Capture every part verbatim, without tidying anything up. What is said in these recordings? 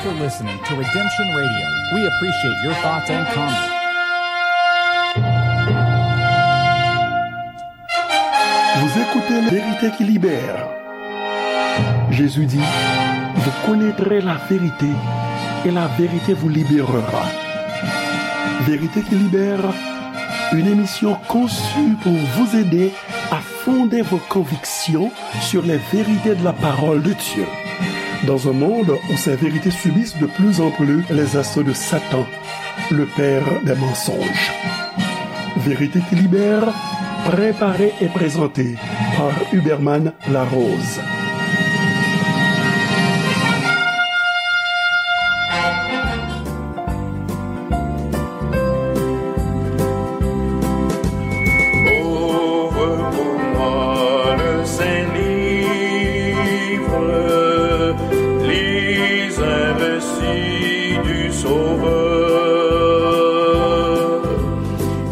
for listening to Redemption Radio. We appreciate your thoughts and comments. Vous écoutez La vérité qui libère. Jésus dit, vous connaîtrez la vérité et la vérité vous libérera. Vérité qui libère, une émission conçue pour vous aider à fonder vos convictions sur les vérités de la parole de Dieu. Dans un monde où ces vérités subissent de plus en plus les assauts de Satan, le père des mensonges. Vérité qui libère, préparée et présentée par Huberman Larose. Ouvre pour moi le saint livre, lis un récit du Sauveur.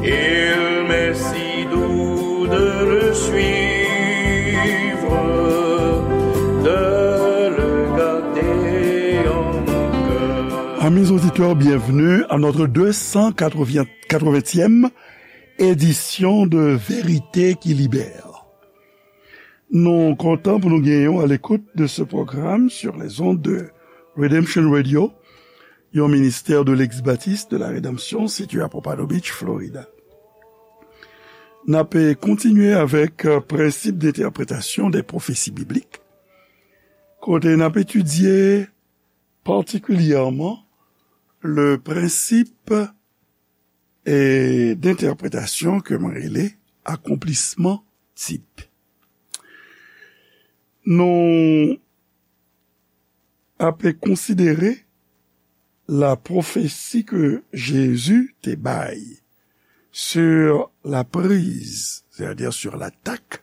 Il m'est si doux de le suivre, de le garder en mon cœur. Amis auditeurs, bienvenue à notre deux cent quatre-vingtième édition de Vérité qui Libère. Nou kontan pou nou genyen w à l'écoute de ce programme sur les ondes de Redemption Radio, yon ministè de l'ex-baptiste de la Rédemption situé à Pompano Beach, Florida. N ap kontinye avèk, euh, prensip d'entèpretasyon dè pwofesi biblik, kote n ap etidye patikilyèman le prensip e d'entèpretasyon ke mwen rele akonplisman tip. Nou ap konsidere la pwofesi ke Jezi te bay sur la prise, c'est-à-dire sur l'attaque,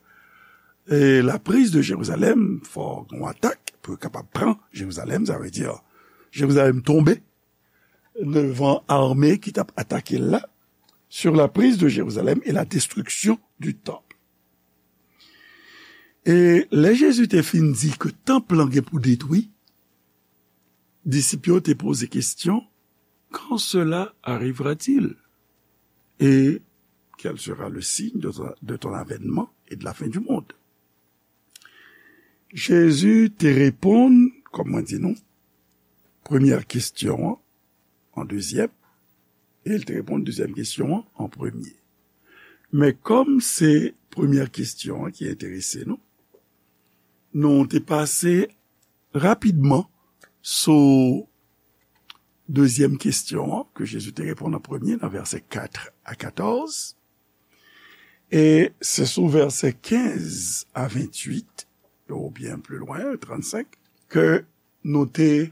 e la prise de Jérusalem, fò gen yon atak pou yo kapab pran Jerizalèm, sa vle di Jerizalèm tonbe, devan ame ki t ap atake l la, sur la prise de Jérusalem et la destruction du temple. E lè Jezi te fin di ke tanp lan gen pou detwi, disip yo te poze kesyon, quand cela arrivera-t-il? Et quel sera le signe de, de ton avènement et de la fin du monde? Jezi te reponn, kòm mwen di nou, premyè kesyon an an dezyèm, e l te reponn dezyèm kesyon an an premye. Men kòm se premyè kesyon an ki enterese nou, nou te pase rapidman sou dezyèm kesyon an ke Jezi te reponn an premye nan vèsè kat a katòz. E se sou vèsè kenz a ventuit, oubyen pli lwen, trannsenk, ke nou te,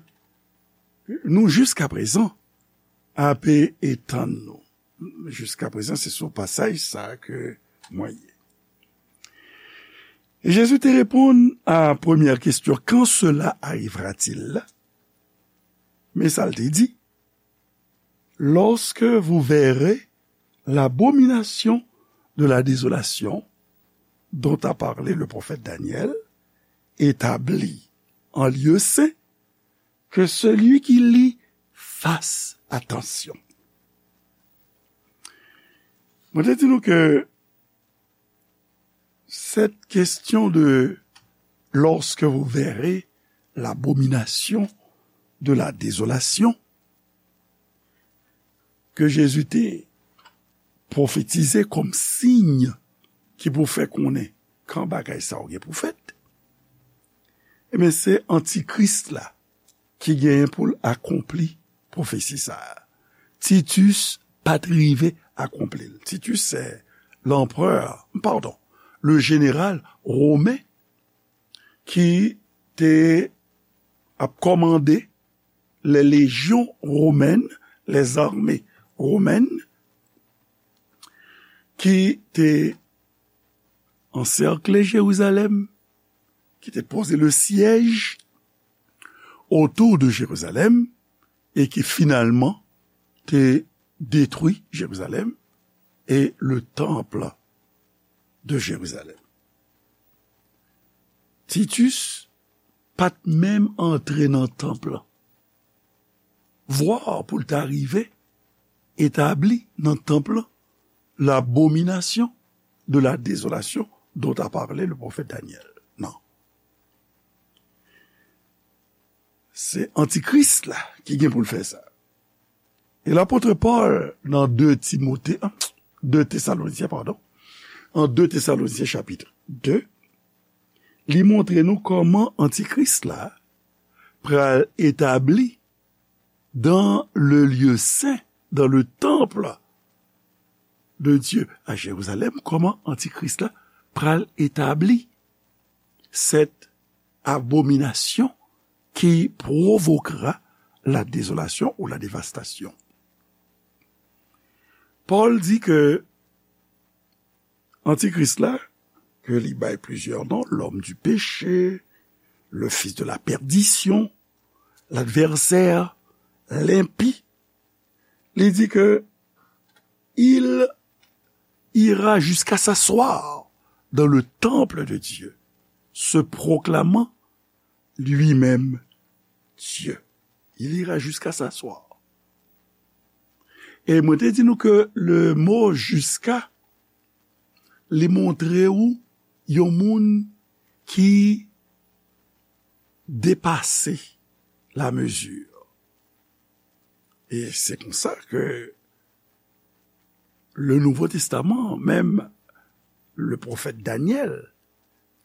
nou jiskaprezan ape etann nou. Jiskaprezan, se sou pasaj sa a ke mwen ye. E Jezi te reponn a premyè kesyon, quand cela arrivera-t-il? Men sa l te di, lorsque vous verrez l'abomination de la désolation dont a parlé le prophète Daniel, établie en lieu saint, que celui qui lit fasse attention. Mwen te di nou ke cette question de lorsque vous verrez l'abomination de la désolation ke Jezi te pwofetize kòm siy ki pou fè konnen kan bagay sa yo gen pou fèt, ebyen, se antikris la ki genyen pou l akonpli pwofesi sa a. Titus pa t rive akonpli l. Titus se lanperè, padon, le jeneral women ki te ap kòmande les légions romaines, les armées romaines, ki te ansèkle Jerizalèm, ki te poze le syèj otou de Jerizalèm, e ki finalman te detwi Jerizalèm e le temple de Jerizalèm. Titus pa t menm antre nan tanp lan. vwa pou l ta rive etabli nan tanp lan l'abomination de la désolation dont a parlé le prophète Daniel. Non. Se antikris la ki gen pou l fè sa. E lapot Pòl nan de Timote, de Tesalonisyen, padon, an de Tesalonisyen chapit de, li montre nou kòman antikris la pral etabli dans le lieu saint, dans le temple de Dieu à Jérusalem, kòman antikris la pral etabli cette abomination qui provoquera la désolation ou la dévastation. Pòl di ke antikris la, ke li bay plizyè non, l'homme du péché, le fils de la perdition, l'adversaire, l'impie, li di ke il ira jusqu'à s'asseoir dans le temple de Dieu, se proclamant lui-même Dieu. Il ira jusqu'à s'asseoir. E mwen te di nou ke le mo jusqu'à, li montre ou yon moun ki depase la mezi. E se konsa ke le Nouveau Testament, menm le pwofèt Danyèl,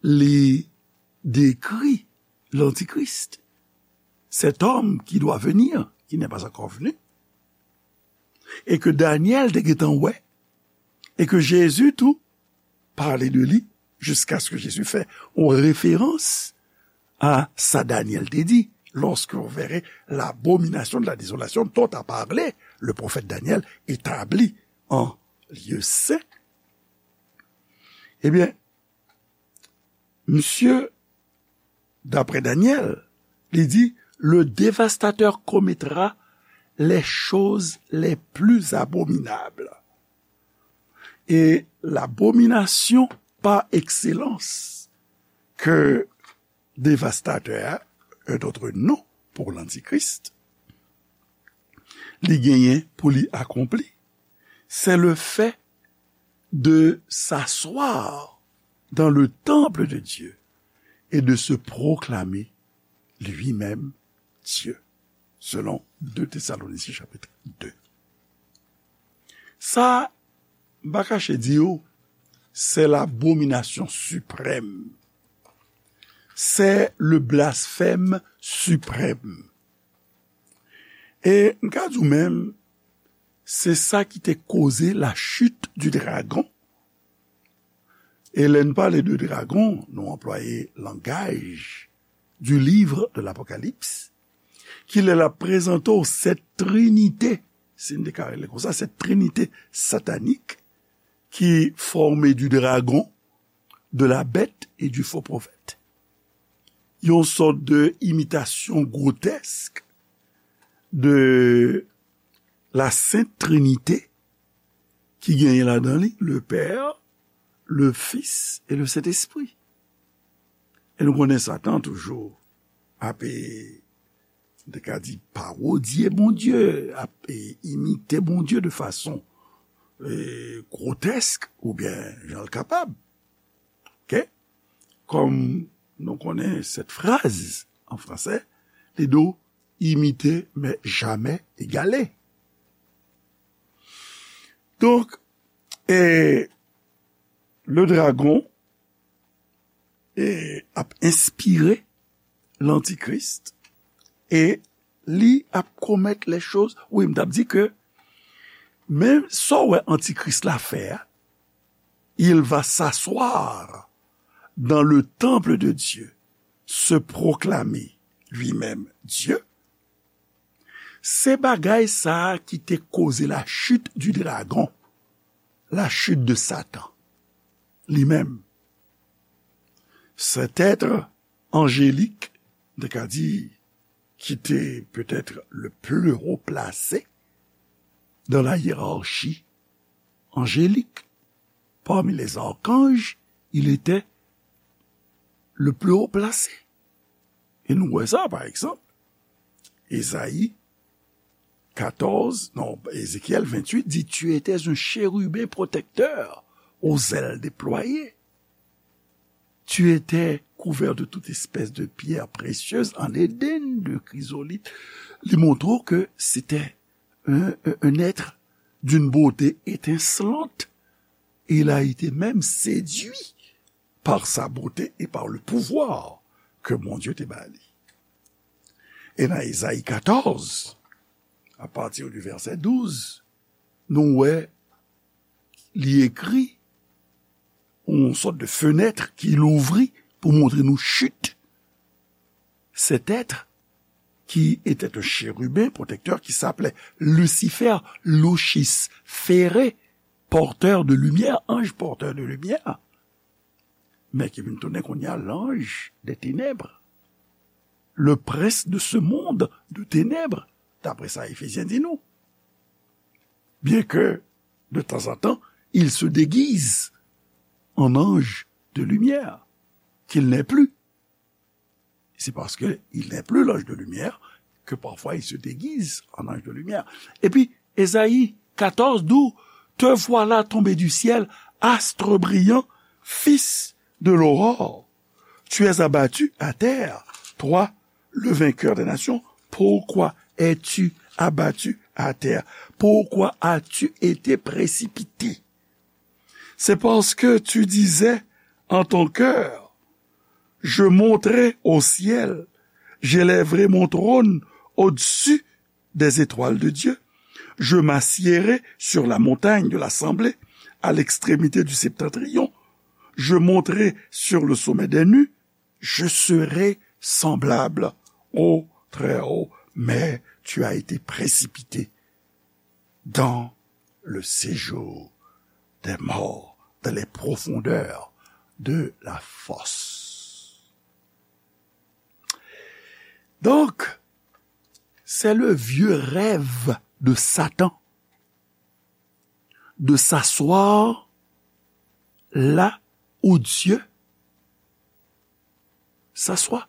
li dekri l'Antichrist, cet homme qui doit venir, qui n'est pas encore venu, e ke Danyèl te gentan wè, e ke Jezi tou pale de li, jiskaske Jezi fè yon referans a sa Danyèl te di, lorsque vous verrez l'abomination de la désolation dont a parlé le prophète Daniel établie en lieu saint. Ebyen, misye, daprè Danyèl, li di, le dévastateur commettra les choses les plus abominables. E l'abomination par excellence ke devastatè a, un autre nom pour l'antichrist, li genyen pou li akonpli, c'est le fait de s'asseoir dans le temple de Dieu et de se proclamer lui-même Dieu, selon deux Thessaloniciens chapitre deux. Sa, m pa kache di w, c'est l'abomination suprême. C'est le blasphème suprême. E m ka di w menm, se sa ki te koze la chute du dragon. E lè n pale de dragon, nou anplwaye langaj du livre de l'Apocalypse, ki lè l ap prezante w cette trinité, si n te ka rele konsa, cette trinité satanique qui formée du dragon, de la bête et du faux prophète. Yon sòt de imitasyon gwotèsk de la Sainte Trinité ki genyen ladan li le Père, le Fils et le Saint-Esprit. E nou konnen Satan toujou ap, e, m te ka di, parodye Bondye, ap, e, imite Bondye de fason, e, gwotèsk oubyen jan l kapab. Oke? Kòm nou konnen cette phrase en français, li di w imiter mais jamais égaler. Donk, e, le dragon, e, ap enspire l'antichrist e li ap commettre les choses. Wi, m t ap di ke men sa w wè antikris la fè a, il va s'asseoir dans le temple de Dieu, se proclamer lui-même Dieu. Se bagay sa a ki te koze la chute du dragon, la chute de Satan li menm. Cet être angélique, m te ka di, qui était peut-être le plus haut placé dans la hiérarchie angélique. Parmi les archanges, il était le plus haut placé. E nou wè sa, pa egzanp, Ezayi, quatorze, non, Ézéchiel vingt-huit dit, tu étais un chérubin protecteur aux ailes déployées. Tu étais couvert de toute espèce de pierre précieuse en Éden, de chrysolite. Li montre ke se te un, un, un être d'une beauté étincelante. Et il a été même séduit par sa beauté et par le pouvoir ke Bondye te ba li. E nan Ezayi quatorze, à partir du verset douze, nou wè li ekri yon sòt de fenèt ki louvri pou montre nou chit. Cet être qui était un chérubin protecteur qui s'appelait Lucifer, Lucis Fere, porteur de lumière, ange porteur de lumière, men ki vin tounen kounye a l'ange des ténèbres, le prince de ce monde de ténèbres, d'après sa Efezyen di nou. Bien que, de temps en temps, il se déguise en ange de lumière, qu'il n'est plus. C'est parce qu'il n'est plus l'ange de lumière que parfois il se déguise en ange de lumière. Et puis, Ésaïe quatorze, d'où te voilà tombé du ciel, astre brillant, fils de l'aurore. Tu es abattu à terre, toi, le vainqueur des nations. Pourquoi es-tu abattu à terre? Pourquoi as-tu été précipité? C'est parce que tu disais en ton cœur, je monterai au ciel, j'élèverai mon trône au-dessus des étoiles de Dieu. Je m'assiérai sur la montagne de l'assemblée, à l'extrémité du septentrion. Je monterai sur le sommet des nues. Je serai semblable au Très-Haut, mais tu as été précipité dans le séjour des morts, dans les profondeurs de la fosse. Donc, c'est le vieux rêve de Satan de s'asseoir là où Dieu s'assoit.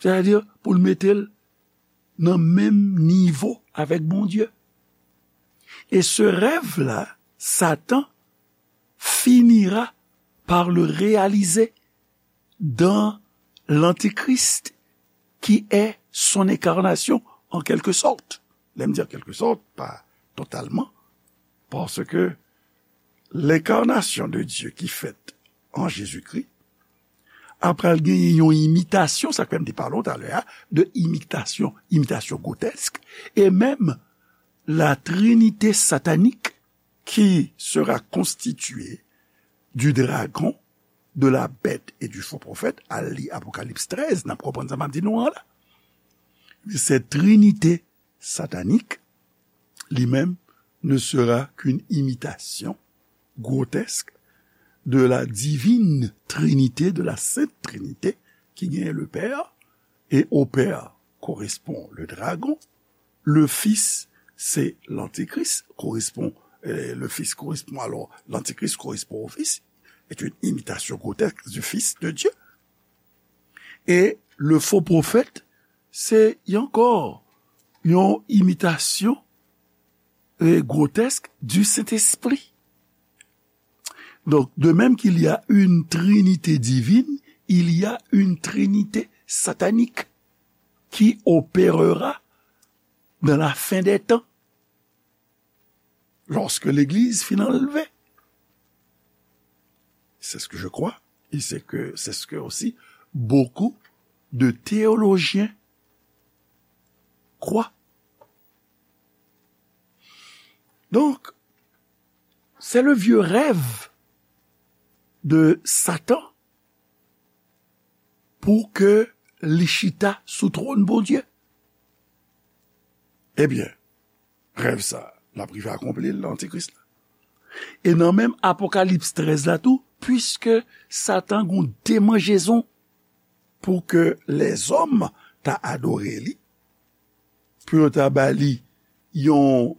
Sètadi, pou l mete l nan menm nivo avèk Bondye. Et ce rêve-là, Satan finira par le réaliser dans l'Antichrist, qui est son incarnation, en quelque sorte. Lè m di en quelque sorte, pa totalman, paske l'incarnation de Dieu ki fèt an Jezikri, apre l genyen yon imitasyon, sa k fè m te pale w talè a, de imitasyon, imitasyon gwotèsk, e menm la trinite satanik qui sera constituée du dragon, de la bête et du faux prophète, al li Apokalips trèz, n ap konprann sa m ap di nou an la. Cette trinité satanique, li menm, ne sera qu'une imitation grotesque de la divine trinité, de la sainte trinité, ki genyen le Père, et au Père correspond le dragon, le Fils, c'est l'Antichrist, correspond, euh, le Fils correspond, alors l'Antichrist correspond au Fils, est une imitation grotesque du Fils de Dieu. Et le faux prophète, c'est ankò yon imitasyon, euh, grotesque du Saint-Esprit. Donc, de même qu'il y a une trinité divine, il y a une trinité satanique qui opérera dans la fin des temps, lorsque l'Église fin anlve. C'est ce que je crois, et c'est que, c'est ce que aussi beaucoup de théologiens croient. Donc, c'est le vieux rêve de Satan pou ke li chita sou twòn Bondye. Ebyen, rèv sa, l ap rive akonpli l nan Antikris la. E nan menm Apokalips trèz la tou, piske Satan gon demanjezon pou ke lèzòm ta adore li, pou yo ta ba li yon,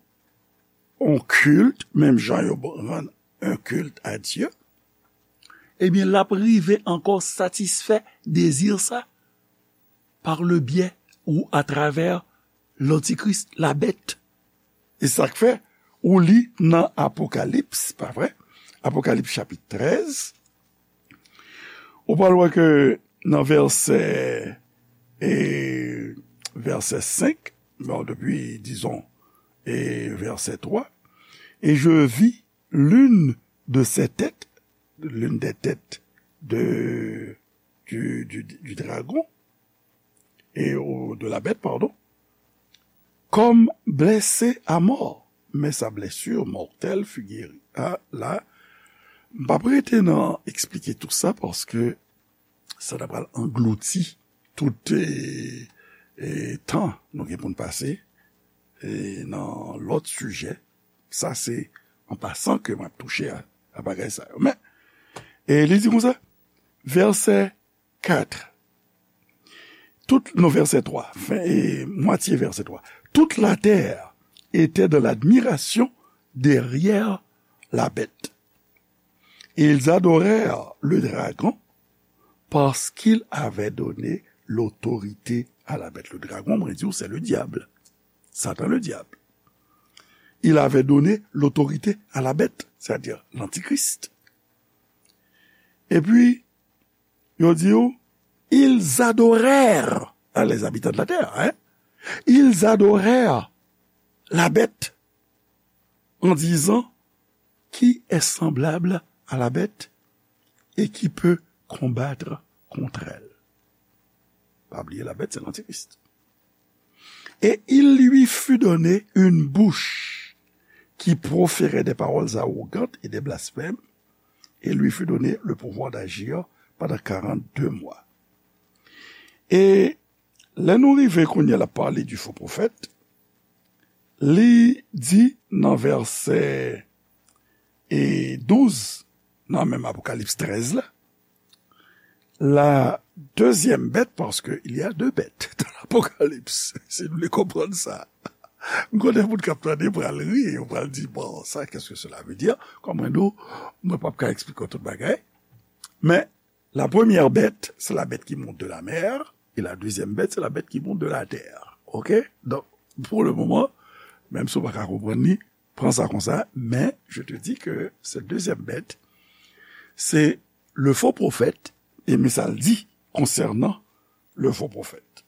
yon kilt, menm jan yo rann un culte à Dieu, ebyen, l ap rive ankò satisfè dezi sa par le biais ou atravè lantikris, la bèt. E sa k fè, ou li nan Apokalips, pa vre? Apokalips chapit trèz, ou pral wè ke nan vèsè, e, vèsè senk, bon, depi, dizon, e vèsè twa, et je vis l'une de ces têtes, l'une des têtes de, du, du, du dragon, et, ou, de la bête, pardon, comme blessée à mort, mais sa blessure mortelle fut guérie. A, la, m p ap rete nan eksplike tout sa, paske sa ta pral anglouti tout, e, e, tan nou gen pou n pase, e, nan lòt sijè. Sa se an pasan ke m ap touche a, a bagay sa yo. Men, e li di konsa, vèsè kat, tout, non, vèsè twa, fen, e, mwatye vèsè twa. Toute la terre était dans l'admiration derrière la bête. Et ils adorèrent le dragon parce qu'il avait donné l'autorité à la bête. Le dragon, mwen di w, se le diable. Satan le diable. Il avait donné l'autorité à la bête, c'est-à-dire l'antichrist. Epi, yo di w, ils adorèrent, ah, les habitants de la terre, hein? Ils adorèrent la bête en disant, qui est semblable à la bête et qui peut combattre contre elle? Pa bliye, la bête, c'est l'antichrist. Et il lui fut donné une bouche qui proférait des paroles arrogantes et des blasphèmes, et lui fut donné le pouvoir d'agir pendant quarante-deux mois. E lè nou rive kounye a l ap pale du faux prophète, li di nan vèsè, e, douz, nan menm Apokalips trèz la, la deuxième bête, parce que il y a deux bêtes dans l'Apocalypse, si nou vle konprann sa. M konnen moun k ap tande pral ri, yo pral di, bon, ça, qu'est-ce que cela veut dire? Kòm mwen di w, mwen p ap ka eksplike w tout bagay. Men, la première bête, c'est la bête qui monte de la mer, et la deuxième bête, c'est la bête qui monte de la terre. OK? Donc, pour le moment, menm si w pa ka konprann li, pran sa konsa, men je te dis que cette deuxième bête, c'est le faux prophète, e men sa l di konsènan le faux prophète.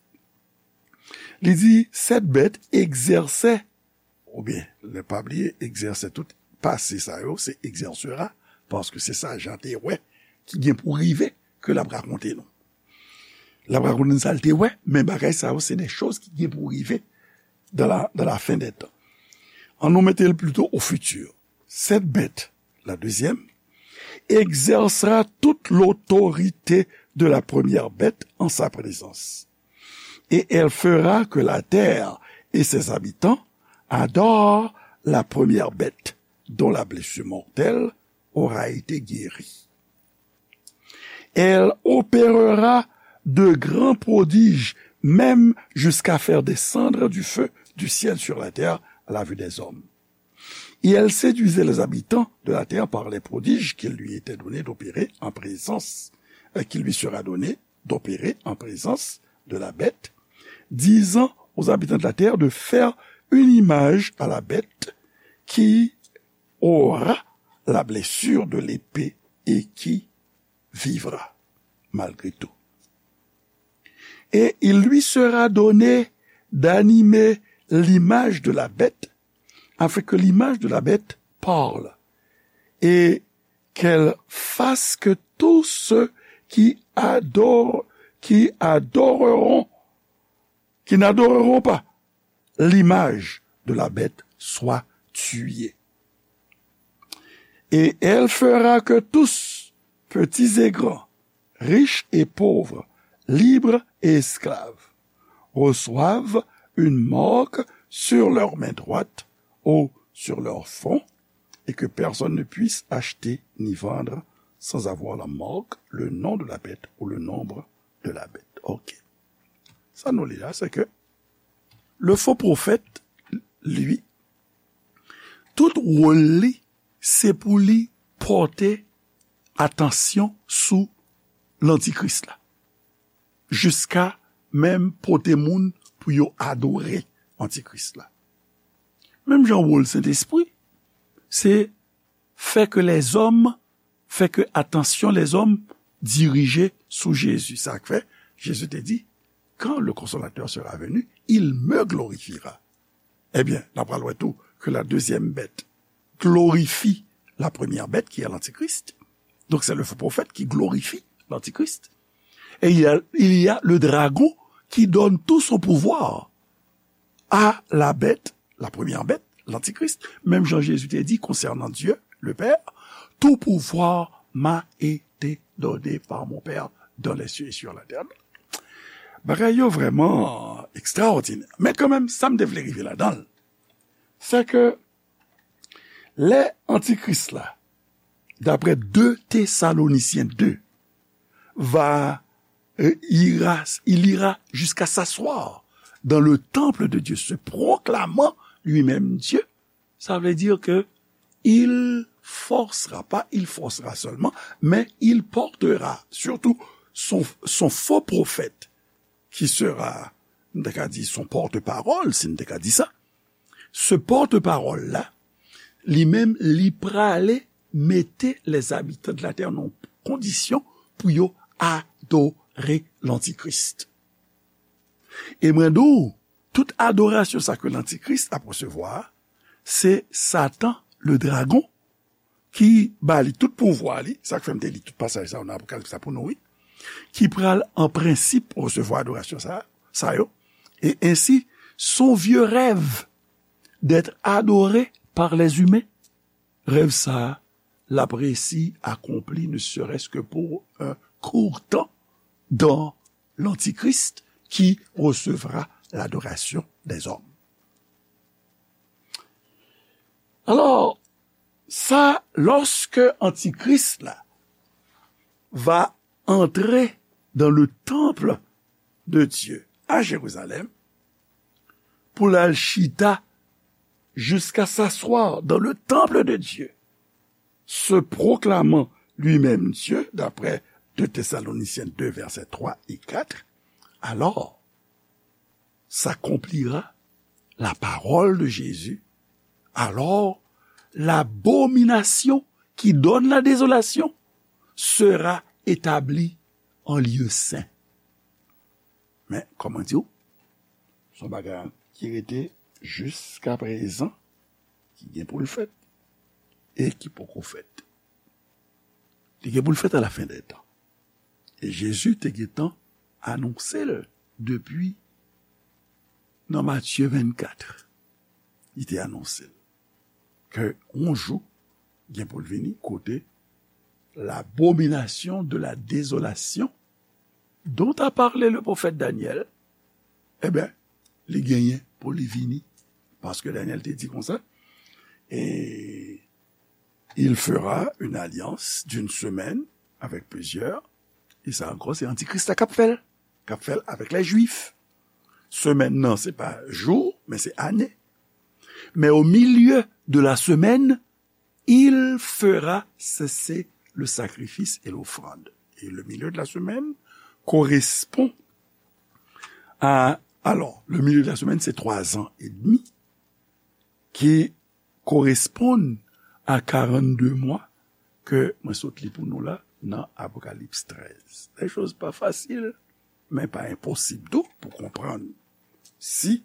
Li di, cette bête exerçait, oubyen, ne pa bliye, exerçait, tout pase sa yo, se exercera, paske se sa Jan te wè ki gen pou rive ke l ap rakonte nou. L ap rakonte n sa l te wè, men bagay sa yo, se de choz ki gen pou rive dans la, dans la fin des temps. An nou mete l plito au futur. Cette bête, la deuxième, exercera toute l'autorité de la première bête en sa présence. Et elle fera que la terre et ses habitants adorent la première bête dont la blessure mortelle aura été guérie. Elle opérera de grands prodiges, même jusqu'à faire descendre du feu du ciel sur la terre à la vue des hommes. Et elle séduisait les habitants de la terre par les prodiges qu'il lui était donné d'opérer en présence, euh, qu'il lui sera donné d'opérer en présence de la bête, disant aux habitants de la terre de faire une image à la bête qui aura la blessure de l'épée et qui vivra malgré tout. Et il lui sera donné d'animer l'image de la bête, afin que l'image de la bête parle, et qu'elle fasse que tous ceux qui adorent, qui adoreront, qui n'adoreront pas l'image de la bête soient tués. Et elle fera que tous, petits et grands, riches et pauvres, libres et esclaves, reçoivent une marque sur leur main droite ou sur leur front, et que personne ne puisse acheter ni vendre sans avoir la marque, le nom de la bête ou le nombre de la bête. OK. Sa nou li la, se ke le faux prophète, li, tout wòl li, se pou li pòte atansyon sou lantikris la. Jiska menm pote moun pou yo adore antikris la. Menm jan wòl Sentespri, se fè ke lèzòm, fè ke atansyon lèzòm dirije sou Jezi. Sa k fè, Jezi te di, quand le consolateur sera venu, il me glorifiera. Ebyen, n ap pral wè tou ke la deuxième bête glorifie la première bête, qui est l'antichrist. Donc, c'est le faux prophète qui glorifie l'antichrist. Et il y a, il y a le dragon qui donne tout son pouvoir à la bête, la première bête, l'antichrist. Menm jan Jezi te di konsènan Dye, le Père, tout pouvoir m'a été donné par mon Père dans les cieux et sur la terre. Bagay yo vrèman ekstraòdinè. Men kanmenm, sa m te vle rive ladan l, se ke lè antikris la, d'après deux Thessaloniciens deux, va, euh, ira, il ira jusqu'à s'asseoir dans le temple de Dieu, se proclamant lui-même Dieu, ça veut dire que il forcera, pas il forcera seulement, mais il portera surtout son, son faux prophète, qui sera, nou ta ka di, son porte-parole, si nou ta ka di sa. Se porte-parole la, li menm, li prale mete les habitants de la terre nan kondisyon pou yo adore l'antikris. E mwen di w, tout adorasyon sa ke lantikris ap resevwa, se Satan, le dragon, ki ba li tout pouvwa li, sa k fè m te li tout pasaj sa yo nan Apokalips la pou nou, wi, ki pral an prensip resevwa adorasyon sa, sa yo, et ainsi son vieux rêve d'être adoré par les humains, rèv sa a, l ap resi akonpli, ne serait-ce que pour un court temps, dans l'Antichrist qui recevra l'adoration des hommes. Alors, ça, lorsque Antichrist là va entrer dans le temple de Dieu à Jérusalem, pou l al chita jusqu'à s'asseoir dans le temple de Dieu, se proclamant lui-même Dieu, d'après deux Thessaloniciens deux, versets trois et quatre, alors s'accomplira la parole de Jésus. Alors, l'abomination qui donne la désolation sera établie en lieu saint. Men, kòman di w? Se yon bagay ki rete jiska prezan, ki gen pou l fèt, e ki poko fèt. Li gen pou l fèt a la fen dè tan. E Jezi te gentan anonse l depi nan Matye vennkat. Li te anonse l ke yon jou gen pou l vini kote l'abomination de la désolation dont a parlé le prophète Daniel, ebyen, li genyen pou li vini. Paske Danyèl te di konsa, et il fera une alliance d'une semaine avec plusieurs, e sa ankò, se antikris la k ap fè l, k ap fè l avèk lè jwif. Semèn nan, se pa jou, men se ane. Mais au milieu de la semaine, il fera cesser le sacrifice et l'offrande. Et le milieu de la semaine correspond à, alors, le milieu de la semaine, c'est trois ans et demi, qui correspondent à quarante-deux mois ke mwen sot li pou nou la nan Apokalips trèz. Lè choz pa fasil, men pa enposib tou pou konprann si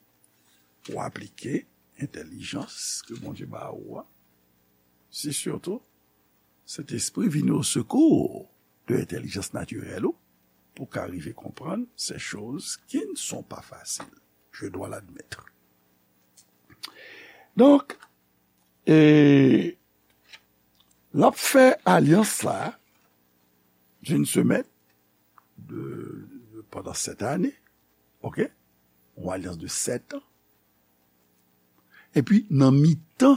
ou aplike entèlijans ke Bondye ba ou a, si sitou Sentespri vini au secours de entèlijans natirèl ou, pou ka rive konprann ces choses qui ne sont pas faciles. Je dois l'admettre. Donk, e, l ap fè alyans la d'une semaine, de, de, pandan sèt ane, ok? Yon alyans de sèt an. Epi, nan mitan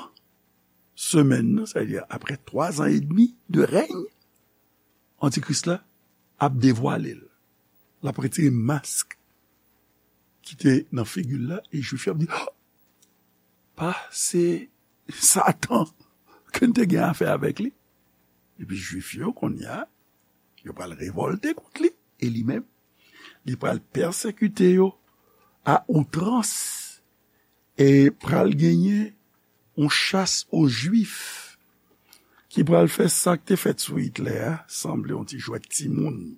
semèn nan, sa vle di apre twa zan edmi de rèy, antikris la ap devwale l. L ap retire mask ki te nan figi l la, e jwif yo ap di, "Ah! Pa se Satan ke n te gen afè avèk li." Epi jwif yo, kounye a, yo pral revòlte kont li, e li menm, li pral pèsekite yo a outrans, e pral genyen yon chas o Jwif ki pral fè sa k te fèt sou Itlè a sanble yon ti jwèt timoun.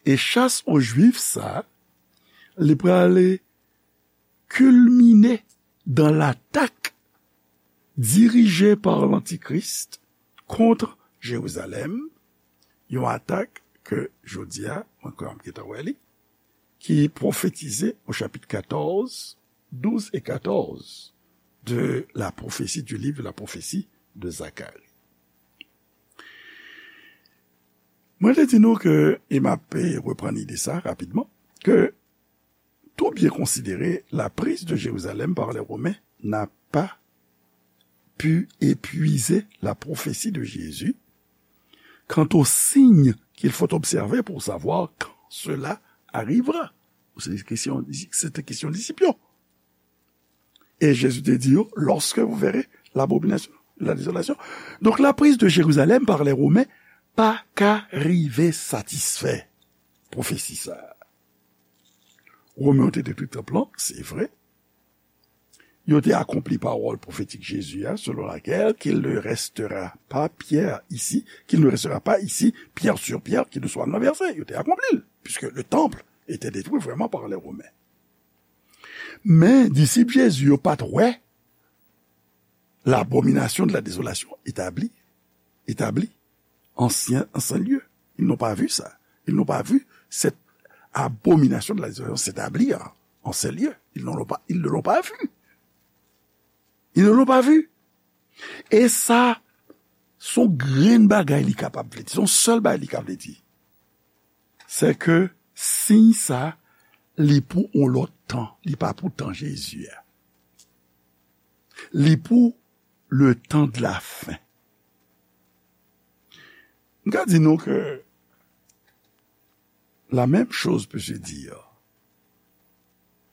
E chas o Jwif sa, li prale kilmine dan latak dirije pa Lantikris kont Jerizalèm, yon atak ke jodi a, mwen kwè m gentan wè li, ki pwofetize o chapit katòz, douz e katòz de la prophétie, du livre de la prophétie de Zacharie. Mwen te di nou ke, e m ap reprann ide sa rapidman, ke tout bien considéré, la prise de Jérusalem par les Romains n'a pas pu épuiser la prophétie de Jésus quant aux signes qu'il faut observer pour savoir quand cela arrivera. Se te kesyon, se te kesyon disip yo. E Jezi te di yo, lorsque vous verrez l'abomination, la désolation. Donk, la prise de Jérusalem par les Romains pa ka rive satisfè pwofesi sa a. Romen yo te detwi tanp lan, se vre. Yo te akonpli pawòl pwofetik Jezi a, selon laquelle qu'il ne restera pas pierre ici, qu'il ne restera pas ici pierre sur pierre qui ne soit renversée. Yo te akonpli l, puisque le temple était détruit vraiment par les Romains. Men disip Jezi yo pa t wè l'abomination de la désolation établie, établie en saint, en saint lieu. Ils n'ont pas vu ça. Ils n'ont pas vu cette abomination de la désolation s'établir en saint lieu. Ils ne l'ont pas, ils ne l'ont pas vu. Ils ne l'ont pas vu. E sa, se yon grenn bagay li kapab vle di, se yon sèl bagay li ka vle di. Se ke siy sa, li pou yon lòt tan, li pa pou tan Jezi a. Li pou le temps de la fin. M ka di nou ke la même chose peut se dire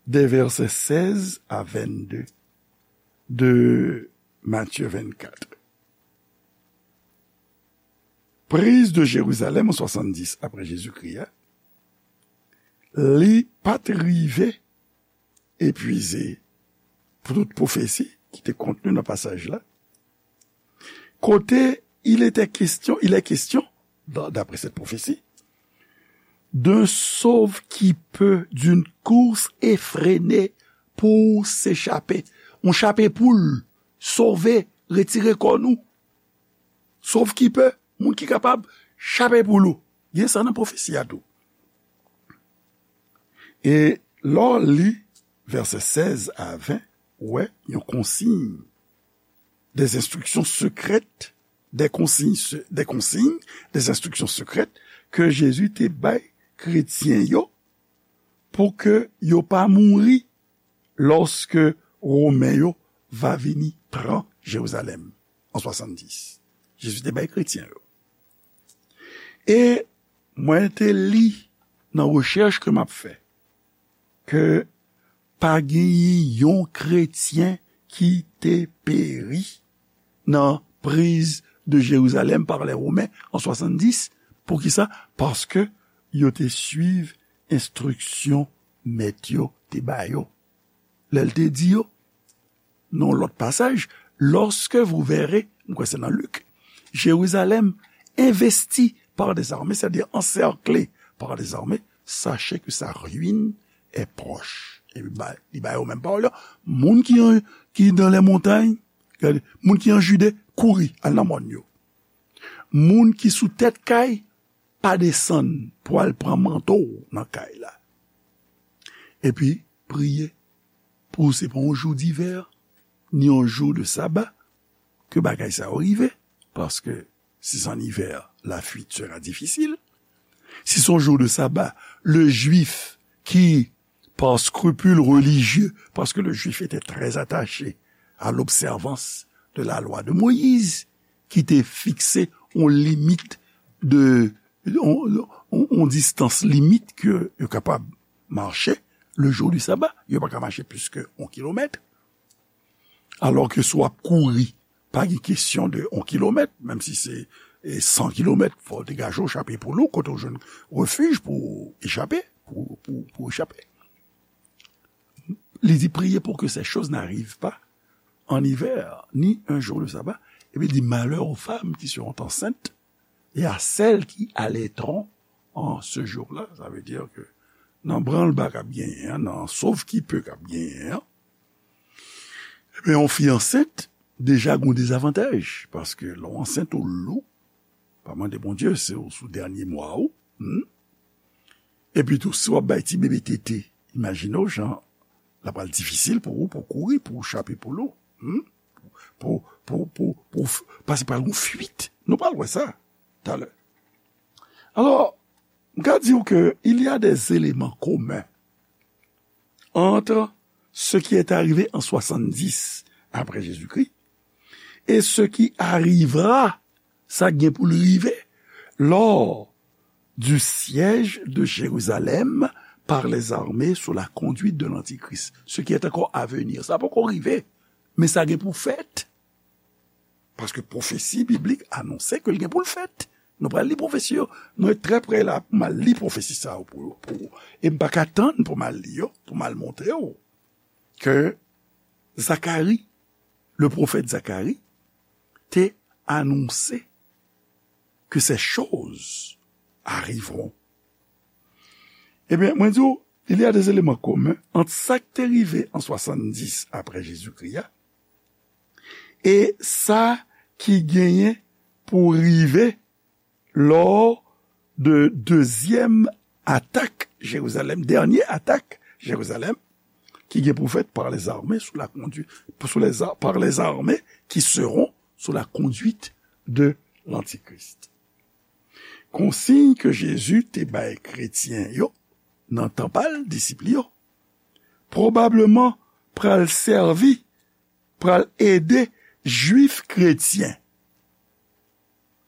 des versets seize à vingt-deux de Matthieu vingt-quatre. Prise de Jérusalem an swasanndis apre Jezikri a, li pa t rive epuize pou tout pwofesi ki te kontni nan pasaj la. Kote il était question, il est question, dans- d'après cette prophétie, d'un sauve qui peut, d'une course effrénée pour s'échapper. Yon chape poul, sove, retire kò nou. Sauve qui peut, moun ki kapab chape poul ou. Gen sa nan pwofesi a tou. E lè w li vèsè sèz a ven, ou wè yon konsiy, des instructions secrètes, des consignes se- des consignes, des instructions secrètes ke Jezi te bay kretyen yo pou ke yo pa mouri lòske Women yo va vini pran Jerizalèm an swasanndis. Jezi te bay kretyen yo. E mwen te li nan rechèch ke m ap fè ke pa genyen yon kretyen ki te peri nan prise de Jérusalem par les Romains en soixante-dix. Poukisa? Paske yo te suiv enstriksyon mèt yo te ba yo. Lè l te di yo, nan yon lòt pasaj, lorsque vous verrez, m kwè se nan Lik, Jérusalem investi par des armées, c'est-à-dire encerclé par des armées, sachez que sa ruine est proche. E li ba, li ba yo menm pawòl yo. Moun ki an, ki dans les montagnes, gade, moun ki an Jide, kouri, al nan mòn yo. Moun ki sou tèt kay, pa desann pou al pran manto w nan kay la. Epi, priye pou se pa yon jou divè, ni yon jou de saba, ke bagay sa yo rive, paske si se an ivè, la fuite sera difficile. Si se yon jou de saba, le jwif ki par scrupule religieux, parce que le juif était très attaché à l'observance de la loi de Moïse, ki te fikse yon limit de, yon, yon, yon distans limit ke yo kapab mache le jou di saba. Yo pa ka mache plis ke yon kilomèt. Alò ke si w ap kouri, pa gen kesyon de yon kilomèt, menm si se, e, san kilomèt, fò w degaje w, chape poul ou, kote w jwenn refij pou w echape, pou, pou, pou w echape. Li di, priez pour que ces choses n'arrivent pas en hiver, ni un jour de sabbat. Epi li di, malheur aux femmes qui seront enceintes et à celles qui allaiteront en ce jour-là. Sa vle di ke nan branlba k ap genyen an, nan sauve-qui-peut k ap genyen an, ebyen, yon fi ansent, deja gon dezavantaj, paske lè w ansent ou lou, pa mande Bondye, se w sou dènye mwa ou, hmm? Epi tou, si w ap bay ti bebe tete, imajine w jan l ap pral difisil pou ou, pou w kouri, pou w chape poul ou, hmm? Pou, pou, pou, pou, pou, paske pral gon fuit. Nou pral wè sa talè. Alò, m ka di w ke il y a des éléments communs entre ce qui est arrivé en soixante-dix après Jésus-Christ et ce qui arrivera, sa k gen pou l rive, lors du siège de Jérusalem par les armées sous la conduite de l'Antichrist. Ce qui est encore à venir. Sa poko rive, men sa gen pou fèt. Paske pwofesi biblik anonse ke l gen pou l fèt. Nou pral li pwofesi yo. Mwen trè prè la pou m al li pwofesi sa yo pou, pou, e m pa ka tann pou m al li yo, pou m al montre w ke Zakari, le pwofèt Zakari, te anonse que ces choses arriveront. Ebyen, mwen di w, il y a des éléments communs entre sa k te rive an swasanndis apre Jezikri a e sa ki genyen pou rive lò de dezyèm atak Jerizalèm, dènye atak Jerizalèm, ki gen pou fèt par les armées sous la conduite, sous les ar-, par les armées qui seront sous la conduite de l'Antichrist. Konsiy ke Jezi te bay kretyen yo nan tan pa l, disip li yo, pwobableman pral sèvi, pral ede Jwif kretyen,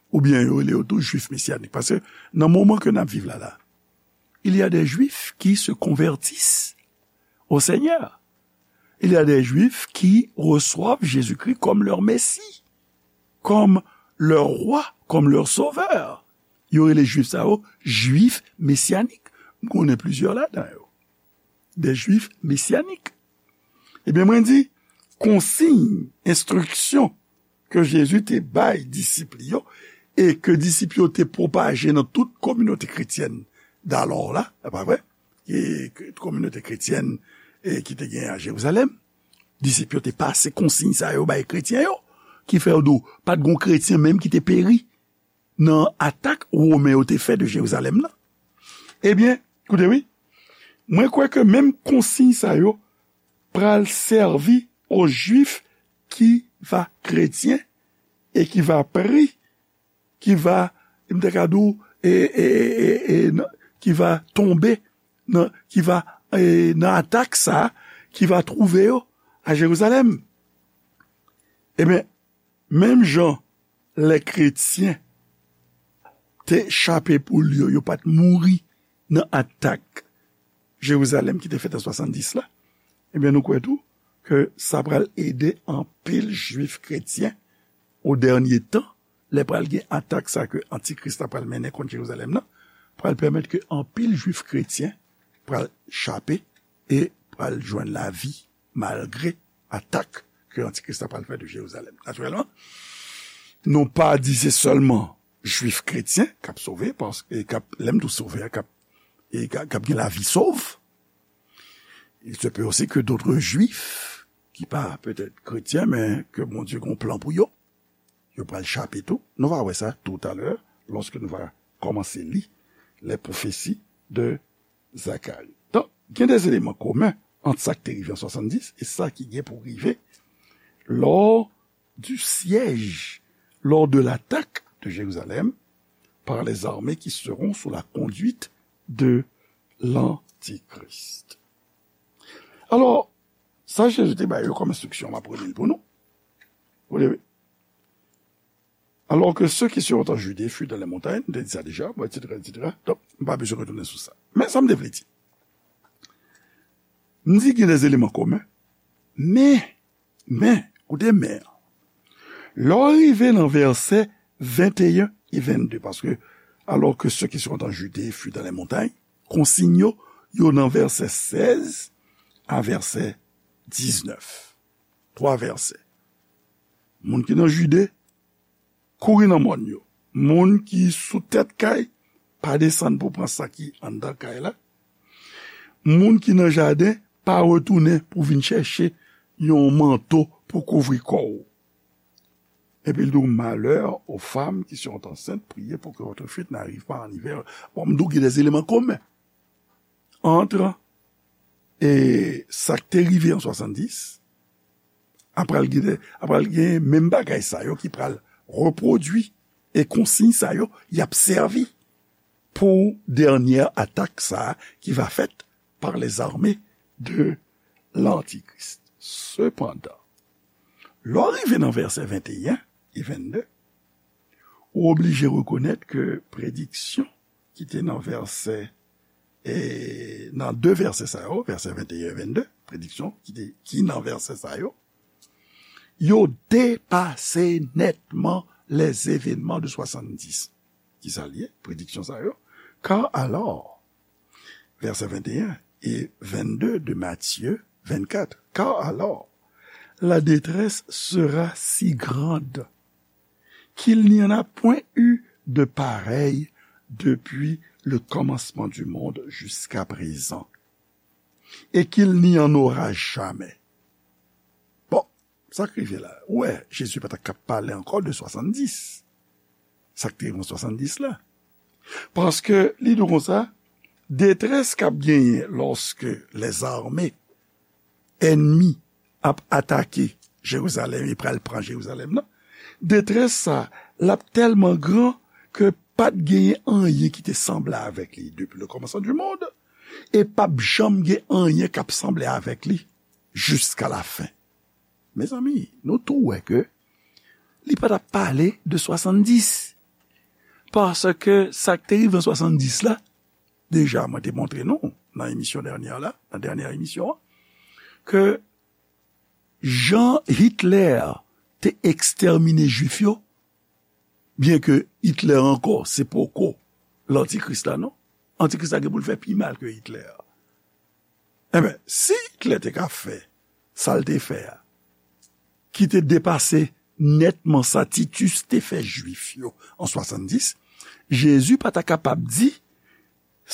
oubyen yo rele yo tou Jwif mesyanik. Paske nan moman ke n ap viv la, la, il y a des Juifs qui se convertissent au Seigneur. Il y a des Juifs qui reçoivent Jésus-Christ comme leur Messie, comme leur roi, comme leur sauveur. Yo rele Jwif sa yo Jwif mesyanik. M konnen plizyè ladan yo. Des Juifs messianiques. Ebyen, mwen di, konsiy, enstriksyon ke Jezi te bay disip li yo, e ke disip yo te pwopaje nan tout kominote kretyèn dalò la, e pa vre? E ke kominote kretyèn, e ki te gen a Jerizalèm, disip yo te pase konsiy sa yo bay kretyen yo, ki fè yo di w, pa t gon kretyen menm ki te peri nan atak Women yo te fè de Jerizalèm nan. Ebyen, koute wi, mwen kwè ke menm konsiy sa yo pral sèvi aux Juifs qui va chrétiens et qui va périr, qui va, m te ka di w, e, e, e, e, e, nan, qui va tomber, nan, qui va, e, nan atak sa, qui va trouve yo a Jerizalèm. Ebyen, menm jan lè kretyen te chape poul yo, yo pa t mouri nan atak Jerizalèm ki te fèt an swasanndis la, ebyen, nou kwè tou ke sa pral ede anpil Jwif kretyen o dènye tan, lè pral gen atak sa ke Antikris la pral mennen kont Jerizalèm nan, pral pèmèt ke anpil Jwif kretyen pral chape e pral jwenn lavi malgre atak ke Antikris la pral fè de Jerizalèm. Natirèlman, nou pa di se sèlman Jwif kretyen k ap sove, paske k ap, lè m di w sove a, k ap, e k ap, k ap gen lavi sov. Il se peut aussi que d'autres Juifs, ki pa petèt kretyen, men ke Bondye gen yon plan pou yo, yo pral chape tou. Nou va wè sa toutalè, lòske nou va kòmanse li les prophéties de Zacharie. Donk, gen des éléments communs ant sa ki te rive an swasanndis e sa ki gen pou rive lors du siège, lors de l'attaque de Jérusalem par les armées qui seront sous la conduite de l'Antichrist. Alò, sa Jezi te bay yo kòm enstriksyon, m ap reli l pou nou. Vous voyez, alors que ceux qui seront en Judée fuient dans les montagnes, m te di sa deja, bon, et cetera, et cetera. Donk, m pa bezwen retounen sou sa. Men sa m te vle di. M di gen des éléments communs, men, men, koute men an. Lè w rive nan vèsè venteyen e vennde, paske alors que ceux qui seront en Judée fuient dans les montagnes, konsiy yo, yo nan vèsè sèz a vèsè diznèf. Twa vèsè. Moun ki nan Jide, kouri nan mòn yo. Moun ki sou tèt kay, pa desann pou pran sa ki anndan kay la. Moun ki nan jaden, pa retounen pou vin chèche yon manto pou kouvri kò w. Epi l di w, malheur aux femmes qui sont enceintes, priez pour que votre fuite n'arrive pas en hiver. Bon, m di w gen des éléments communs entre e sa k te rive an swasanndis, apral gen, apral gen menm bagay sa yo ki pral repwodui, e konsiy sa yo y ap sèvi pou dènyè atak sa a ki va fèt par les armées de l'Antichrist. Sepandan, lè w rive nan vèsè venteyen e vennde, ou oblije rekonèt ke prediksyon ki te nan vèsè, e, nan de vèsè sa yo, vèsè venteyen e vennde, prediksyon ki te, ki nan vèsè sa yo, yo depase nètman les événements de swasanndis. Ki sa l ye, prediksyon sa yo? Car alors, vèsè venteyen e vennde de Matthieu vingt-quatre. Car alors, la détresse sera si grande qu'il n'y en a point eu de pareille depuis le commencement du monde jusqu'à présent, et qu'il n'y en aura jamais. Bon, sa k rive la? Ou wè, Jezi pa t ap ka pale ankò de swasanndis. Sa k te rive an swasanndis la. Paske li di w konsa, detrès k ap genyen lòske lèzame ènmi ap atake Jerizalèm e pral pran Jerizalèm nan, detrès sa, l ap tèlman gran ke pa t genyen anyen ki te sanble avèk li depi le commencement du monde, e p ap janm gen anyen k ap sanble avèk li jiska lafen. Mezanmi, nou tou wè ke li pa t ap pale de swasanndis. Paske sa k te rive an swasanndis la, deja mwen te montre nou nan emisyon dènyè la, nan dènyè emisyon an, ke jan Hitler te ekstèmine Jwif yo, byen ke Hitler ankò, se poko lantikris la, non. Antikris la gen pou l fè pi mal ke Hitler. Enben, si Hitler te ka fè sa l te fè a, ki te depase nètman sa Titus te fè Jwif yo an swasanndis, Jezi pa ta kapab di,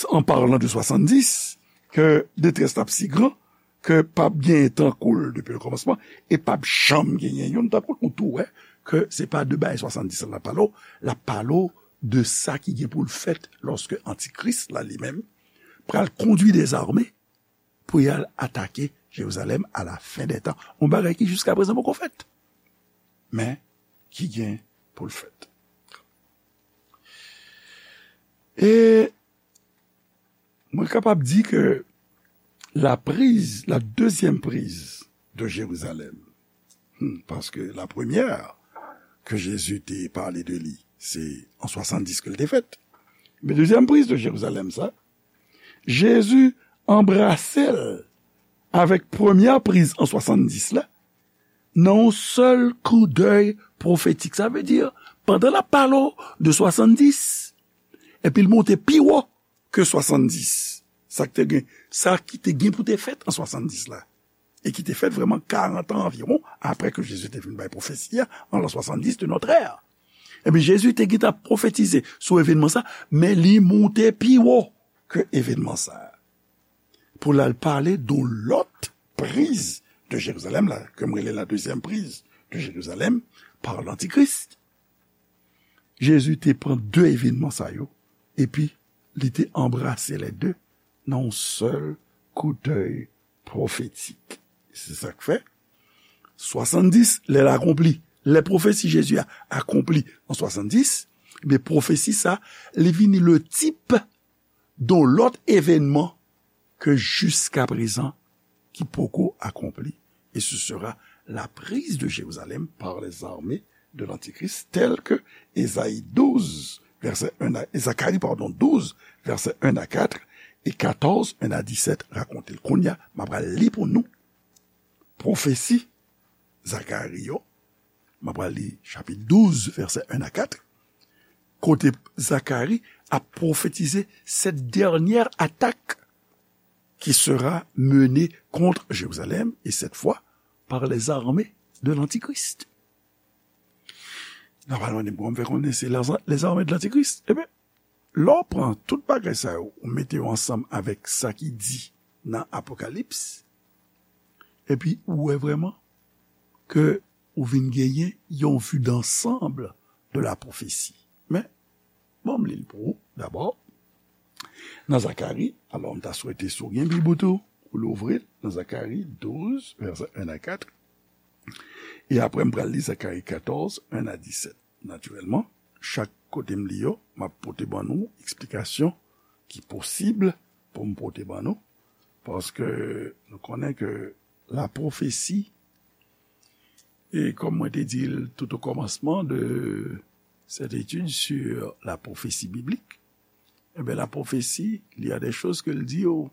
an palan de swasanndis, ke detrès la ap si gran, ke p ap genyen tankou l depi le kòmansman, e p ap janm genyen youn tankou l. Ou tou wè ke se pa de bagay swasanndis la l ap pale w, l ap pale w de sa ki gen pou l fèt lòske Antikris la li menm pral kondui dèzame pou y al atake Jerizalèm à la fin des temps. Yon bagay ki jiska prezan poko fèt, men ki gen pou l fèt. E mwen kapab di ke la prise, la deuxième prise de Jérusalem, hmm, paske la premyè ke Jezi te pale de li, se an swasanndis ke l te fèt. Men dezyèm priz de Jerizalèm sa, Jezi anbrase l avèk premyè priz an swasanndis la, nan yon sèl koudèy pwofetik. Sa vle di, pandan l ap pale w de swasanndis, epi l monte pi wo ke swasanndis. Sa ki te gen, sa ki te gen pou te fèt an swasanndis la, e ki te fèt vrèman karant an anviwon apre ke Jezi te fin bay pwofesi a, an l'an soixante-dix de notre ère. Ebyen, Jezi te gentan pwofetize sou evènman sa, men li monte pi wo ke evènman sa. Pou l al pale de lòt priz de Jerizalèm la, ke m rele la deuxième prise de Jérusalem par l'Antichrist. Jezi te pran de evènman sa yo, epi li te anbrase lè de nan yon sèl koudèy pwofetik. Se sa k fè, swasanndis, lè l akonpli, lè pwofesi Jezi a akonpli an swasanndis, ebyen, pwofesi sa, li vini le tip de lòt evènman ke jiska prezan ki poko akonpli, et ce sera la prise de Jérusalem par les armées de l'Antichrist, tel que Ésaïe douze, verset un à, Zacharie, pardon, douze, verset un à quatre, et quatorze, un à dix-sept rakonte l. Kounye a, m ap pral li pou nou pwofesi Zakari yo. M ap pral li chapit douz, vèsè un à quatre, kote Zakari ap pwofetize cette dernière attaque qui sera menée contre Jérusalem, et cette fois par les armées de l'Antichrist. N ap al mande m kòman m fè konnen se lèzame de lantikris. Ebyen, lè w pran tout bagay sa yo, ou mete yo ansanm avèk sa ki di nan Apokalips, epi ou wè vrèman ke ou vin genyen yon vue d'ensemble de la prophétie. Men, bon, m li l pou ou, dabò. Nan Zakari, alò, m ta swete si w gen Bib ou tou, ou louvri l nan Zakari douz, vèsè en a kat. E apre, m pral li Zakari katòz, en a disèt. Natirèlman, chak kote m li yo, m ap pote ban nou eksplikasyon ki posib pou m pote ban nou, paske nou konnen ke la pwofesi, e kòm mwen te di l tout o kòmansman de cette étude sur la prophétie biblique, ebyen, la prophétie, il y a des choses que l di yo,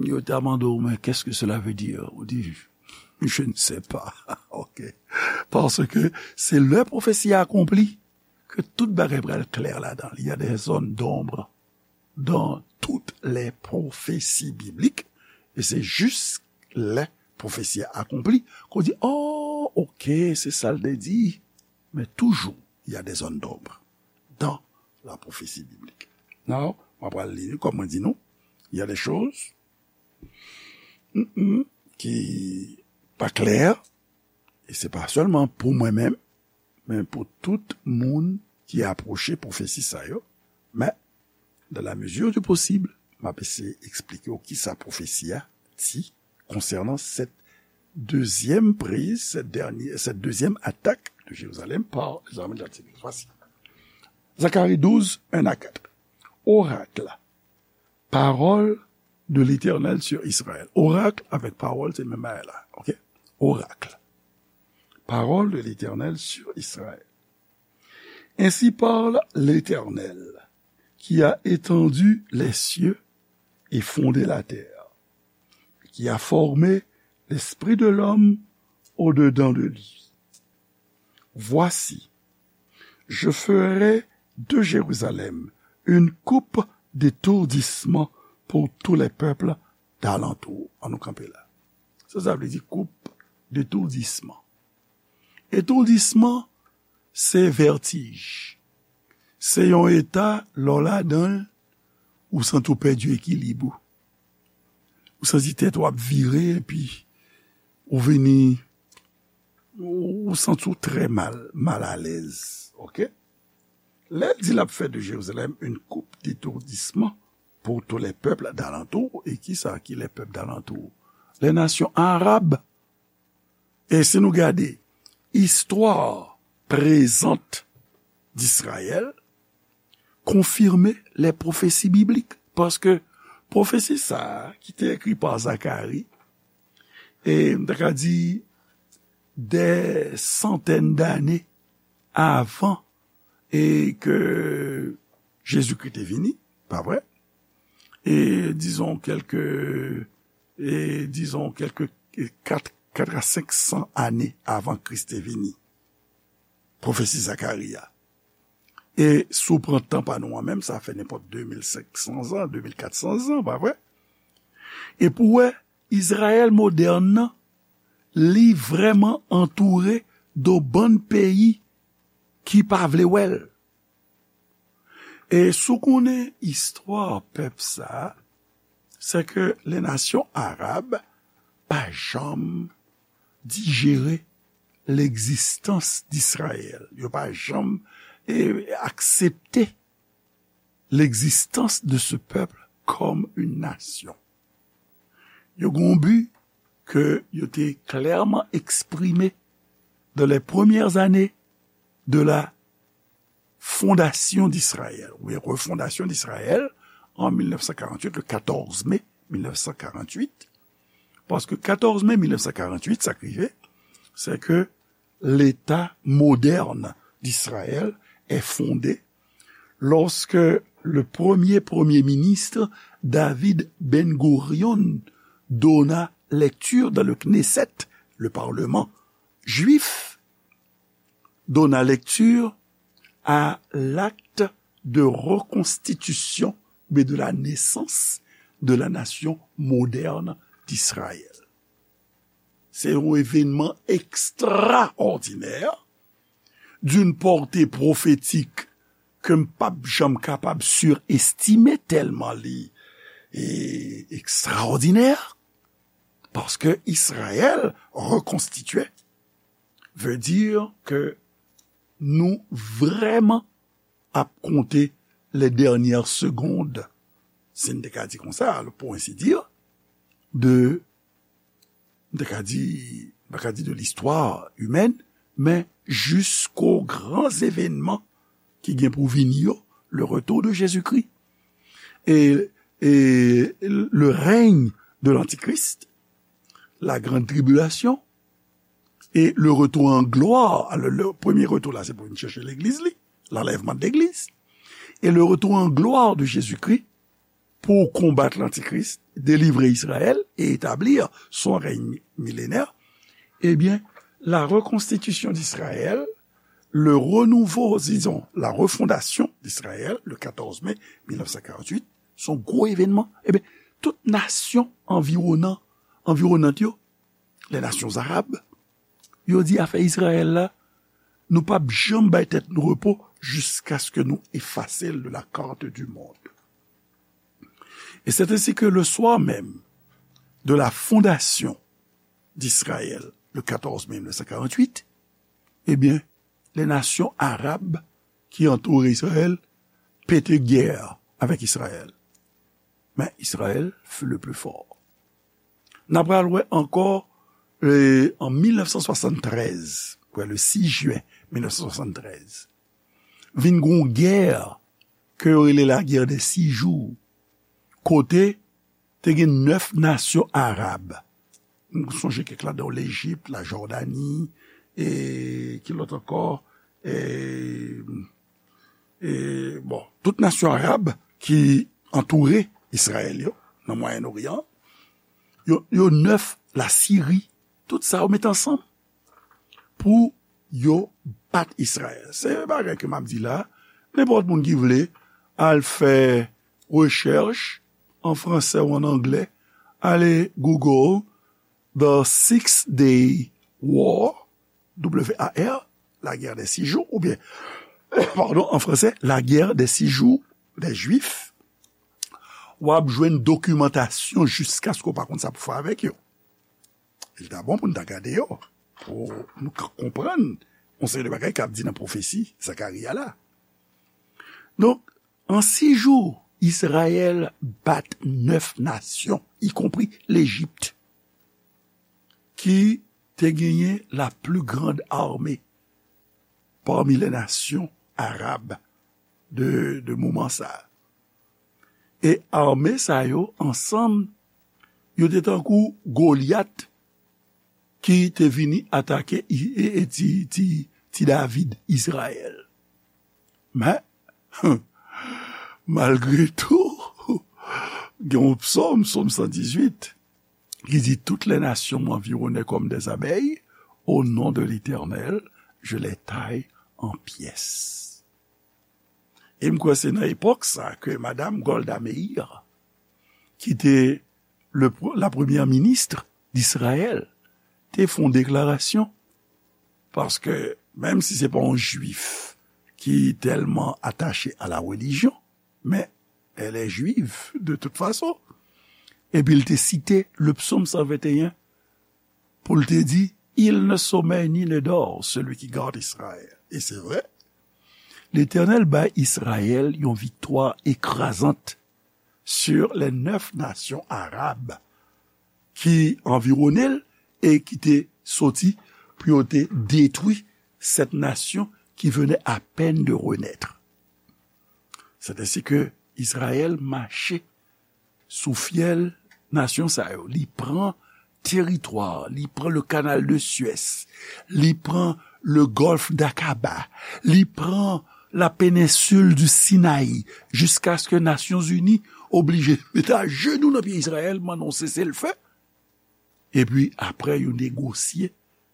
yo ta mande w, men qu'est-ce que cela veut dire? Ou di, je ne sais pas. Ok. Parce que c'est le prophétie accomplie que tout bagay pral klè ladan. Il y a des zones d'ombre dans toutes les prophéties bibliques. Et c'est juste les prophéties accomplies qu'on dit, oh, ok, c'est ça le dit. Mais toujours, il y a des zones d'ombre dans la prophétie biblique. Now, mwen pral li, kòm mwen di nou, il y a des choses mm, mm, ki pa klè, e se pa sèlman pou mwen menm, men pou tout moun ki apwoche pwofesi sa yo. Men, dans la mesure du possible, m ap eseye eksplike w kisa pwofesi a di konsènan cette deuxième prise, cette dernière, cette deuxième attaque de Jérusalem par les armées de l'Antichrist. Voici. Zacharie douze, un à quatre. Oracle. Parole de l'Éternel sur Israël. Oracle avec parole, c'est le même bagay la. Ok? Oracle. Parole de l'Éternel sur Israël. Ainsi parle l'Éternel, qui a étendu les cieux et fondé la terre, qui a formé l'esprit de l'homme au-dedans de lui. Voici, je ferai de Jérusalem une coupe d'étourdissement pour tous les peuples d'alentour. An nou kanpe la. Sa, sa vle di koup d'étourdissement. Etoudisman, se vètij. Se yon eta, lè w ladan l, ou santi w pèdi ekilib ou. Ou santi tèt ou ap vire, epi ou vini, ou, ou santi w trè mal, mal alèz. Ok? Lè l di l ap fè de Jérusalem une coupe d'étourdissement pour tous les peuples d'alentour, e kisa ki les peuples d'alentour? Les nations arabes. E si nou gade istwa prezant d'Israël, konfime les prophéties bibliques. Paske pwofesi sa a, ki te ekri pa Zakari, e m ta ka di des centaines d'années avan e ke Jezikri te vini, pa vre? E dizon kèlke, e dizon kèlke kat, kat a senk san ane avan Kris te vini. Pwofesi Zakari a. E si w pran tan pa nou an menm, sa fè nenpòt de mil senk san zan, de mil kat san zan, pa vre? E pou w wè, Izrayèl modèn nan, li vrèman antoure de bann peyi ki pa vle wè l. E si w konnen istwa pèp sa a, se ke les nations arabes pa janm dijere l'existence d'Israël. Yo pa janm, e, aksepte l'existence de ce peuple comme une nation. Yo gen yon bi ke yo te klèman eksprime dans les premières années de la fondation d'Israël, oubyen refondasyon d'Israël an mil nèf san karant-uit, le katòz me mil nèf san karant-uit. Paske katòz me mil nèf san karant-uit, sa k rive, se ke l'État moderne d'Israël est fondé lorsque le premier Premier ministre David Ben-Gurion donna lecture dans le Knesset, le parlement juif, donna lecture à l'acte de reconstitution, mais de la naissance de la nation moderne d'Israël. Se yon evènman ekstraòdinè d'une portée prophétique ke m p ap janm kapab sirestime tèlman li e ekstraòdinè, paske Izrayèl rekonstitye veut dire ke nou vrèman ap konte les dernières secondes, si n te ka di konsa, pour ainsi dire, de, m te ka di, m pa ka di de l'histoire humaine, men jusqu'aux grands événements ki gen pou vini yo, le retour de Jésus-Christ et, et le règne de l'Antichrist, la grande tribulation et le retour en gloire. Alò, le premye retou la, se pou vin chèche legliz li, l'enlèvement de l'église, et le retour en gloire de Jésus-Christ pour combattre l'Antichrist, délivrer Israël et établir son règne millénaire, eh bien, la reconstitution d'Israël, le renouveau, disons, la refondation d'Israël, le quatorze mai mille neuf cent quarante-huit, se yon gwo evènman. Ebyen, tout nasyon anviwonan, anviwonant yo, les nations arabes, yo di afè Izrayèl la, nou p ap janm bay tèt nou repo jiskaske nou efase l de la carte du monde. Et c'est ainsi que le soir même de la fondation d'Israël, le quatorze mai mille neuf cent quarante-huit, eh bien, les nations arabes qui entouraient Israël pétaient guerre avec Israël. Mais Israël fut le plus fort. N a pral wè ankò, euh, an mil nèf san swasann trèz, wè, le sis jen mil nèf san swasann trèz, vin gon gè ke yo rele la guerre des six jours, kote te gen nèf nasyon arab. M sonje kèk ladan yo, Lejip, la Jòdani, e ki lòt ankò? E, e, bon, tout nasyon arab ki antoure Izrayèl yo, nan Mwayen Oryan, yo, yo nèf, Lasiri, tout sa yo met ansanm pou yo bat Izrayèl. Se bagay ke m ap di la, nenpòt moun ki vle al fè rechèch an fransè ou an anglè, ale Google The Six Day War, W A R, la guerre des six jours, oubyen, padon, an fransè, la guerre des six jours des Juifs, w ap jwenn dokimantasyon jiskaske w pa konn sa pou fè avèk yo. Li ta bon pou n ta gade yo, pou nou ka konprann yon seri de bagay k ap di nan pwofesi Zakari a la. Donk, an sis jou, Izrayèl bat nèf nasyon, ikonpri Lejip, ki te genyen la plus grande armée parmi les nations arabes de, de moman sa a. E ame sa yo ansanm, yo te tankou Golyat ki te vini atake i-, e, e ti, ti, ti David, Izrayèl. Men, malgre tou, gen yon psòm, psòm san dizuit, ki di, toutes les nations m'environnaient comme des abeilles, au nom de l'Éternel, je les taille en pièces. E m kwè se nan epòk sa ke madam Golda Meir, ki te le pr-, la premyè minis d'Izrayèl, te fè yon deklarasyon. Paske, menm si se pa yon jwif ki tèlman atache a la relijyon, men elle est juive de toute façon. Epi l te site le psaume cent vingt et un pou l te di, il ne sommeille ni ne dort, celui qui garde Israël. E se vre, Letènèl bay Izrayèl yon viktwa ekrazant sur les neuf nations arabes ki anviwone l e ki te soti pou yo te detwi cette nation qui venait à peine de renaître. C'est ainsi que Izrayèl mache sou fyèl nasyon sa yo. Li pran teritwa, li pran le canal de Suez, li pran le golfe d'Aqaba, li pran la péninsule du Sinaï, jiskaske Nasyonzini oblije mete ajenou nan pye Izrayèl, mande yon seselfe. Epi apre, yo negosye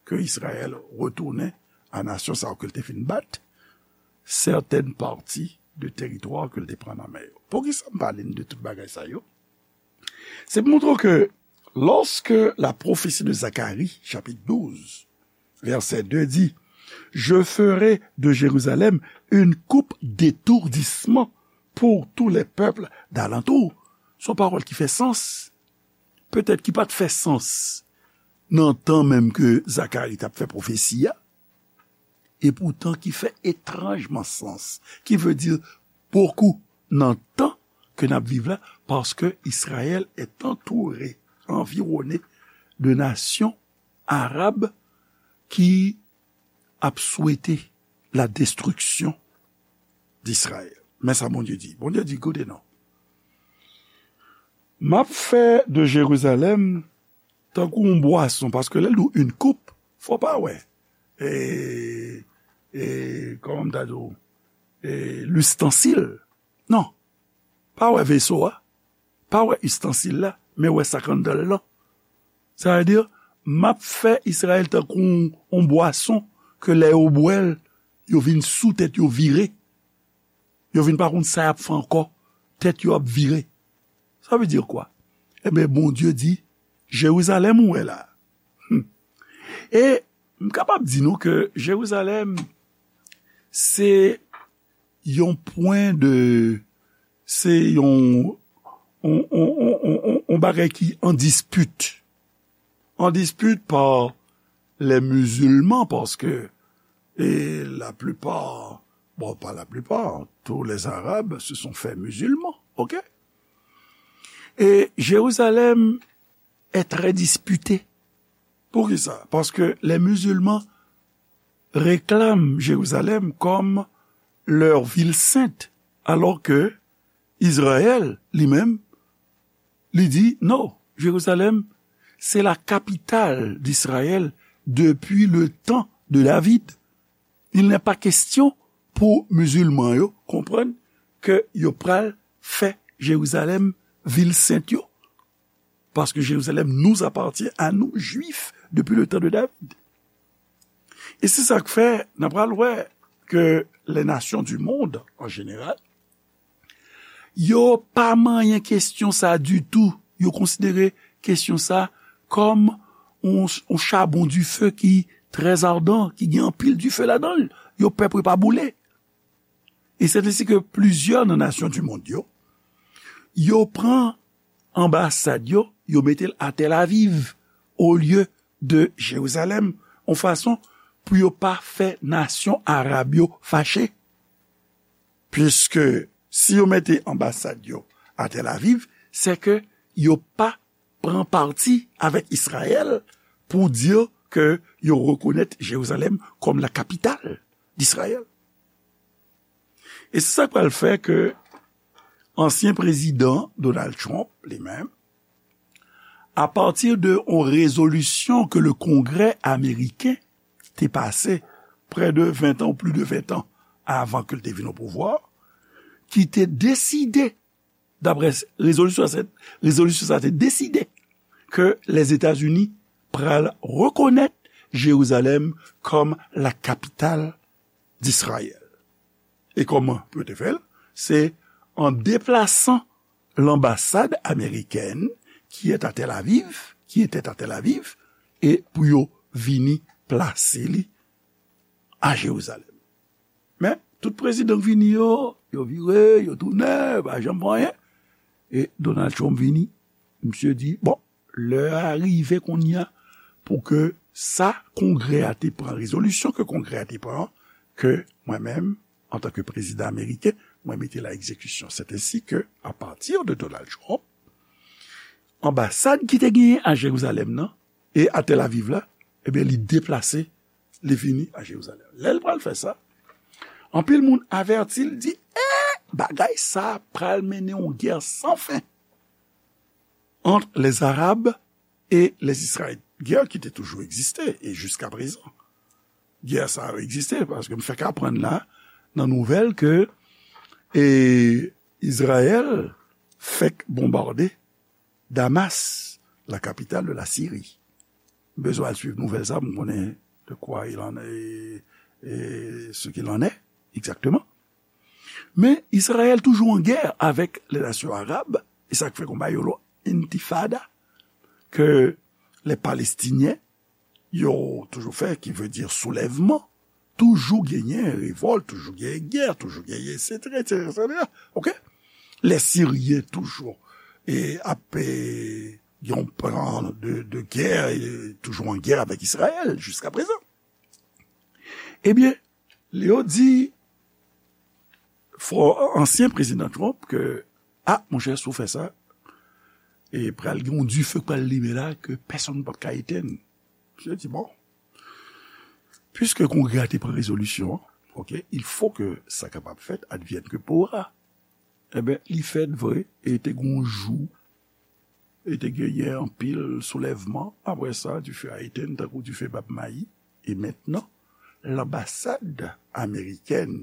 ke Izrayèl retounen a nasyon sa yo ke l te fin bat, sètèn pati de teritwa ke l te pran nan men yo. Poukisa m pale n de tout bagay sa yo? Se pou montre w ke lorsque la prophétie de Zacharie, chapitre douze, verset deux dit, Je ferai de Jérusalem une coupe d'étourdissement pour tous les peuples d'alentour. Se yon pawòl ki fè sans. Petèt ki pa t fè sans nan tan menm ke Zakari t ap fè pwofesi a, epoutan ki fè etranjman sans, ki vle di bokou nan tan ke n ap viv la, paske Israël est entouré, environné de nations arabes qui ap swete la destruction d'Israël. Men sa Bondye di. Bondye di, koute non. M ap fè de Jerizalèm tankou yon bwason, paske lè l di w une coupe, fò pa wè, e, e, kòman m ta di w, e, listansil. Non. Pa wè veso a. Pa wè istansil la, men wè sa k anndan l lan. Sa vle di, m ap fè Izrayèl tankou yon, yon bwason ke lè yo bwè l, yo vin sou tèt yo vire. Yo vin pa konn sa y ap fè ankò. Tèt yo ap vire. Sa vle di kwa? Ebyen, Bondye di, Jerizalèm ou wè la. Hmm. E m kapab di nou ke Jerizalèm, se yon pwen de, se yon, yon, yon, yon, yon, yon bagay ki an dispit. An dispit pa lè mizilman, paske, e laplipa, bon, pa laplipa, tous les Arabes se sont faits musulmans, ok? E Jerizalèm est très dispité. Poukisa? Paske les musulmans réclament Jérusalem comme leur ville sainte, alors que Israël, li menm, li di, non, Jérusalem, c'est la capitale d'Israël depuis le temps de David. Il n'est pas question pou mizilman yo konprann ke yo pral fè Jerizalèm vil sent yo. Paske Jérusalem nous appartient à nous, Juifs, depuis le temps de David. E se sa k fè, n a pral wè ke les nations du monde, en général, yo pa manyen kesyon sa ditou. Yo konsidere kesyon sa kòm yon, yon chabon dife ki trè ardan, ki gen anpil dife ladan l. Yo pè pou yo pa boule. E se ensi ke plizyè nan nasyon du monde yo, yo pran anbasad yo, yo mete l a Tel Aviv, olye de Jerizalèm, yon fason pou yo pa fè nasyon arab yo fache. Piske si yo mete anbasad yo a Tel Aviv, se ke yo pa pran pati avèk Izrayèl pou di ke yo rekonèt Jerizalèm kòm la capitale d'Israël. E se sa k pral fè ke ansyen prezidan Donald Trump, li menm, a pati de yon rezolisyon ke le Kongrè ameriken te pase prè de ven tan ou plis de ven tan avan ke l te vin o pouvwa, ki te deside, daprè rezolisyon sa, rezolisyon sa te deside ke Lèzetazini pral rekonèt Jerizalèm kòm la capitale d'Israël. E kòman pou yo te fè l? Se an deplasan l'ambassade américaine qui est à Tel Aviv, qui était à Tel Aviv, e pou yo vini plase li a Jerizalèm. Men, tout prezidan k vini yo, yo vire, yo tounen, yo pa janm fè anyen. E Donald Trump vini, misye di, bon, lè a rive kounye a pou ke sa Kongrè a te pran, rezolisyon ke Kongrè a te pran, ke mwen menm, antanke prezidan ameriken, mwen mete l a egzekisyon. Se ensi ke, a pati de Donald Trump, anbasad ki te genyen a Jerizalèm nan e a Tel Aviv la, ebyen, li deplase, li vini a Jerizalèm. Lè l pral fè sa, anpil moun avèti l, di, eh, bagay sa pral mennen yon gè san fen entre les Arabes et les Israélites. Gè ki te toujou egziste e jiska prezan. Gè sa a egziste paske m fèk aprann la nan nouvèl ke, e, Izrayèl fèk bonbade Damas, la capitale de la Syrie. M bezwen al swiv nouvèl sa pou m konnen de quoi il en est, et, et ce qu'il en est exactement. Men Izrayèl toujou an gè avèk lè nasyon arab, e sa k fè konba yo lo intifada, ke lè Palestinyen yo toujou fè, ki vle di soulèvman, toujou genyen revòlt, toujou genyen gè, toujou genyen, etsetera, etsetera, etsetera. Oke? Lè Siryen toujou e ap e, gen yon plan de, de gè, e toujou an gè avèk Izrayèl jiska prezan. Ebyen, yo di fò ansyen prezidan Trump ke, a, monchè, si w fè sa, e pral gen yon dife k pral limen la ke pèsonn p ap ka etenn. Misye di, bon, piske Kongrè a te pran rezolisyon an, oke, il faut que ça capable fait advienne que pourra. Ebyen, li fèt vre, e te gen yon jou, e te genyen anpil soulèvman. Apre sa, dife a etenn tankou dife bab mayi. E mentnan, lanbasad amerikèn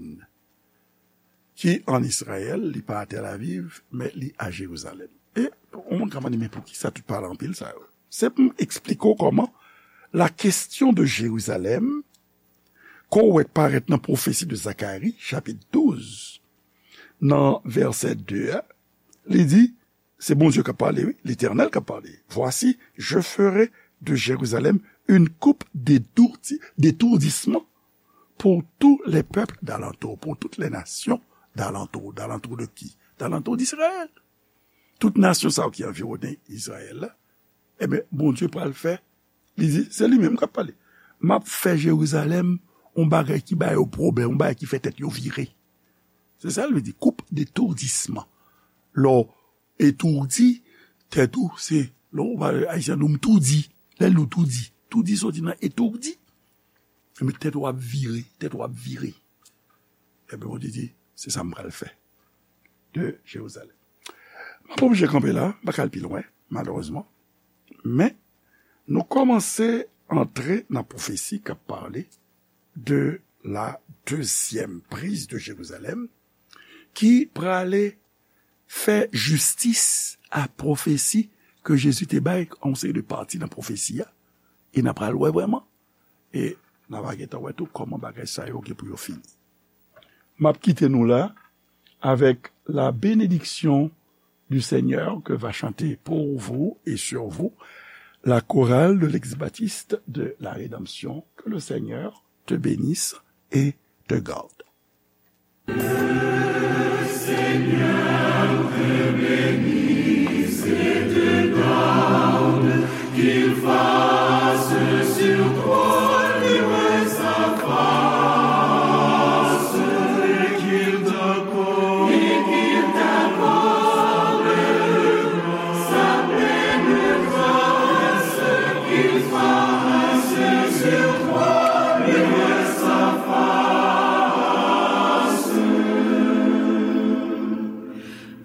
ki an Izrayèl, li pa a Tel Aviv, men li a Jerizalèm. E yon moun ka mande, men poukisa tout pale anpil sa yo? Se pou m eksplike w kòman la kesyon de Jerizalèm, ke w wè parèt nan pwofesi de Zakari, chapit douz, nan vèsè de a, li di, se Bondye k ap pale, wi, Letènèl k ap pale. Voici, je ferai de Jérusalem une coupe d'étourdi-, d'étourdissement pour tous les peuples d'alentour, pour toutes les nations d'alentour. D'alentour de qui? D'alentour d'Israël. Tout nasyon sa yo ki anviwonnen Izrayèl la, ebyen, Bondye pral fè, li di, se li menm k ap pale. M ap fè Jerizalèm yon bagay ki ba yo pwoblèm, yon bagay ki fè tèt yo vire. Se sa l vle di, coupe d'étourdissement. Lè w etoudi, tèt ou, se, lè w pale ayisyen, nou m toudi. Lè nou toudi. Toudi soti nan etourdi. Ebyen, tèt ou ap vire, tèt ou ap vire. Ebyen, Bondye di, se sa m pral fè de Jerizalèm. M ap oblije kanpe la, m pa ka al pi lwen, malerezman. Men, nou kòmanse antre nan pwofesi k ap pale de la deuxième prise de Jérusalem, ki prale fè jistis a pwofesi ke Jezi te bay a yon seri de pati nan pwofesi a, e n ap pral wè vrèman, e n a va gentan wè tou kòman bagay sa yo gen pou yo fini. M ap kite nou la avec la bénédiction du Seigneur que va chanter pour vous et sur vous la chorale de l'ex-baptiste de la Rédemption. Que le Seigneur te bénisse et te garde.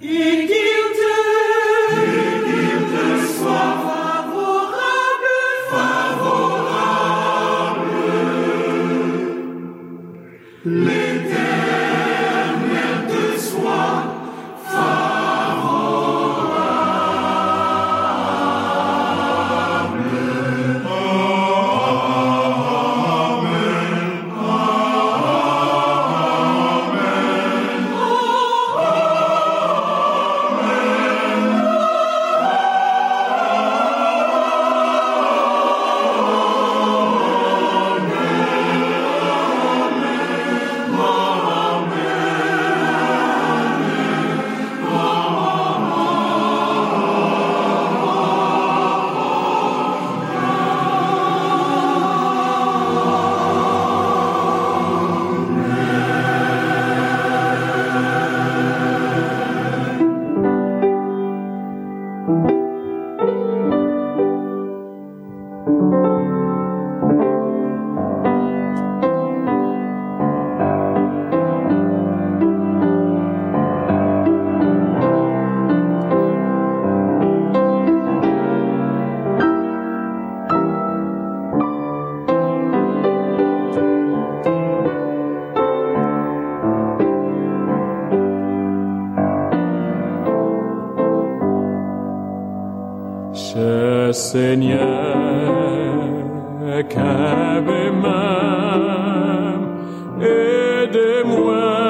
Et qu'il te, et qu'il te soit favorable, favorable. L'Éternel te soit favorable. Chè Senyè, kenbe men m, ede mwen.